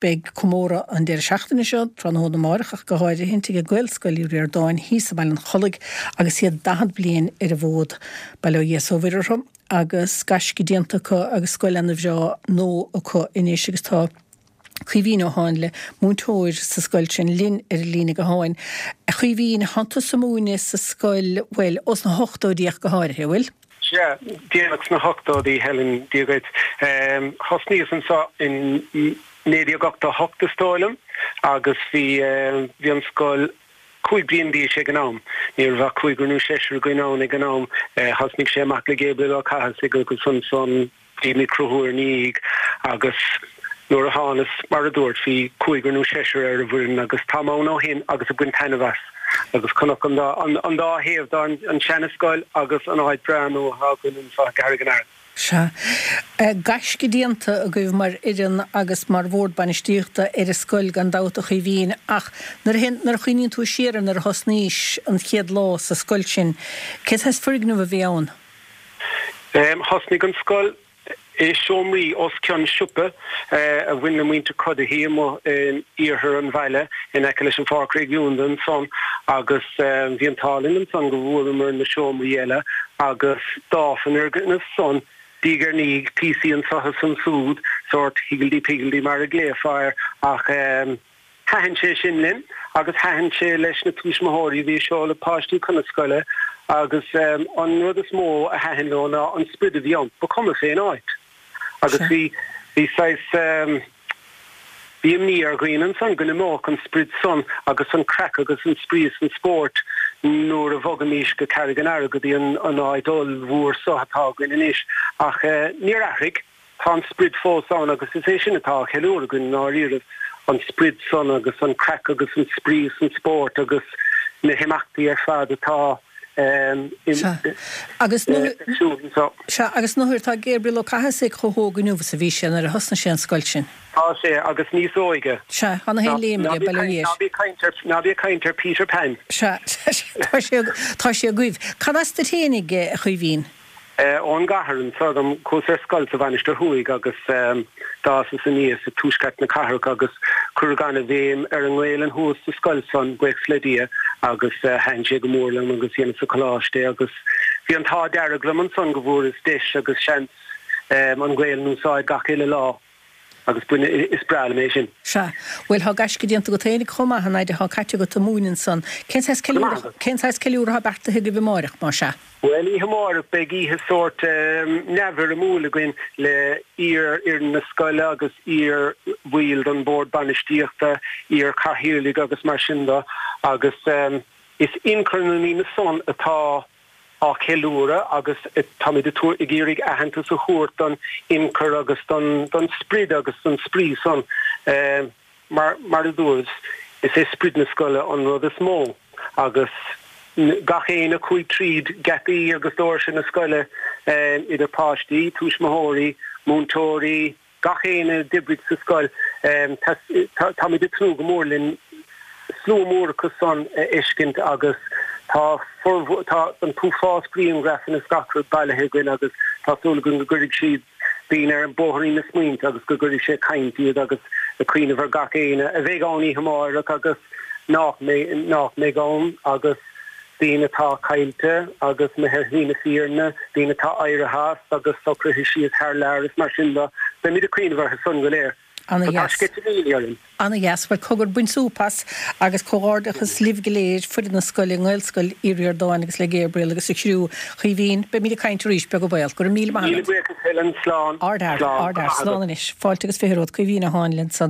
Beidh comóradh an deireadh seachtaine seo, tráthnóna amáireach ach go háirithint, ag Gaelscoil Uí Ríordáin thíos i mBaile an Chollaigh agus iad 40 bliain ar an bhfód. Bail ó Dhia is ó Mhuire orthu agus gaisce déanta acu agus scoil ana bhreá nua acu anois agus tá Caoimhín Ó Háinle, múinteoir sa scoil sin, linn ar an líne gutháin. A Chaoimhín, thánn tusa ag múineadh sa scoil, bhuel, ós na hochtóidí ach go háirithe, an bhfuil? Sea, déanach sna hochtóidí, Helen, Dia dhuit. Thosnaíos anseo in 1988 is dóigh liom agus bhí, bhí an scoil 5 bliain d'aois ag an am. Ní raibh ach cúigear nó seisear againn ann ag an am. Thosnaigh sé amach le Gabriel Ó Cathasaigh agus ansan, Bhí mé ag cruthú ina dhiaidh agus nuair a thánas, mar a dúirt, bhí cúigear nó seisear ar an bhfoireann agus táim ann ó shin agus ag baint taitneamh as agus chonac an dá, an dá thaobh de, an seana-scoil agus an áit breá nua atá againn anseo i gCarraig an Aird. Sea. Gaisce déanta agaibh mar fhoireann agus mar bhord bainistíochta ar an scoil gan dabht a Chaoimhín ach nuair a, nuair a chuimhníonn tú siar ar nuair a thosnaís an chéad lá sa scoil sin, cén saghas foirgneamh a bhí ann? Thosnaigh an scoil i seomraí os cionn siopa a bhain le muintir Cuddihy amuigh in iarthar an bhaile in aice leis an Pháirc Réigiúnda ansan agus bhí an t-ádh linn ansan go bhfuaireamar na seomraí eile agus d'fhás an fhoirgneamh san diaidh ar ndiaidh, píosaí anso is ansúd, sórt higgledy-piggledy mar a ghlaofá air ach Thaitin sé sin linn agus thaitin sé leis na tuismitheoirí a bhí ag seoladh páistí chun na scoile agus an rud is mó a thaitin leo ná an sprid a bhí ann. Ba chuma fén áit. Agus bhí, bhí saghas, bhí imní ar dhaoine ansan go n-imeodh an sprid san agus an craic agus an spraoi is an spórt nuair a bhogfaimís go Carraig an Earraigh go dtí an áit ollmhór so atá againn anois. Ach níor athraigh. Tá an sprid fós ann agus is é sin atá á cheiliúradh againn i ndáiríribh, an sprid san agus an craic agus an spraoi is an spórt agus na himeachtaí ar fad atá Sea. Agus ar siúl anseo. Sea, agus nuair tá Gabriel Ó Cathasaigh chomh hóg inniu is a bhí sé nuair a thosnaigh sé an scoil sin. Tá sé, agus níos óige. Sea, tá na haon léim aige, bail ó Dhia air. Ná bí ag caint ar, ná bí ag caint ar Peter Pan. Sea, tá sé, tá sé agaibh. Cad as duit fhéinig, a Chaoimhín? Ón gcathair anseo dom. Chuas ar scoil sa Mhainistir Thuaidh agus d'fhásas aníos i tuaisceart na cathrach agus cuireadh an-bhéim ar an nGaelainn thuas sa scoil san, buíochas le Dia, agus thaitin sé go mór liom agus dheineas sa choláiste é agus bhí an t-ádh dearg liom ansan go bhfuaireas deis agus seans an Ghaelainn a úsáid gach uile lá. Agus b'in, is breá liom é sin. Sea. Bhuel, thá gaisce déanta agat fhéinig chomh maith, an fhaid athá caite agat ag múineadh ansan. Cén saghas ceiliúradh, cén saghas ceiliúradh athá beartaithe agaibh amáireach, má sea? Bhuel, oíche amáireach beidh oíche sórt neamhfhoirmiúil againn le iar-fhoireann na scoile agus iar-bhaill den bhord bainistíochta, iar-chathaoirligh agus mar sin de agus is ionchur na ndaoine san atá á cheiliúradh agus táimid ag iarraidh aitheantas a thabhairt don ionchur agus don sprid agus don spraoi san. Mar mar a dúras, is é sprid na scoile an rud is mó agus gach éinne a chuaigh tríd geataí agus doirse na scoile, idir páistí, tuismitheoirí, múinteoirí, Gach éinne a d'oibrigh sa scoil, táimid ag tnúth go mór linn slua mór acu san a fheiscint agus tá formhór, tá an t-uafás grianghrafanna is gach rud bailithe againn agus tá súil againn go gcuirfidh siad daoine ar bhóithrín na smaointe agus go gcuirfidh sé ag caint iad agus ag cuimhneamh ar gach éinne a bheidh ann oíche amáireach agus nach mbeidh, nach mbeidh ann agus. daoine atá caillte agus imithe ar shlí na fírinne, daoine atá éirithe as agus socraithe síos thar lear is mar sin de. Beimid ag cuimhneamh orthu san go léir. Ana So tá dheas. sceitimíní orainn. Ana dheas. Bhuel, cogar, bain súp as agus comhghairdeachas libh go léir, foireann na scoile, i nGaelscoil Uí Ríordáin agus le Gabriel agus a chriú. Chaoimhín, beimid ag caint arís, beag an baol. Go raibh míle maith Míle agat. buíochas Helen. Slán. Ardfhear. Slán. Ardfhear. Slán anois. Fáilte agus 20 romhat. Caoimhín Ó Háinle ansan.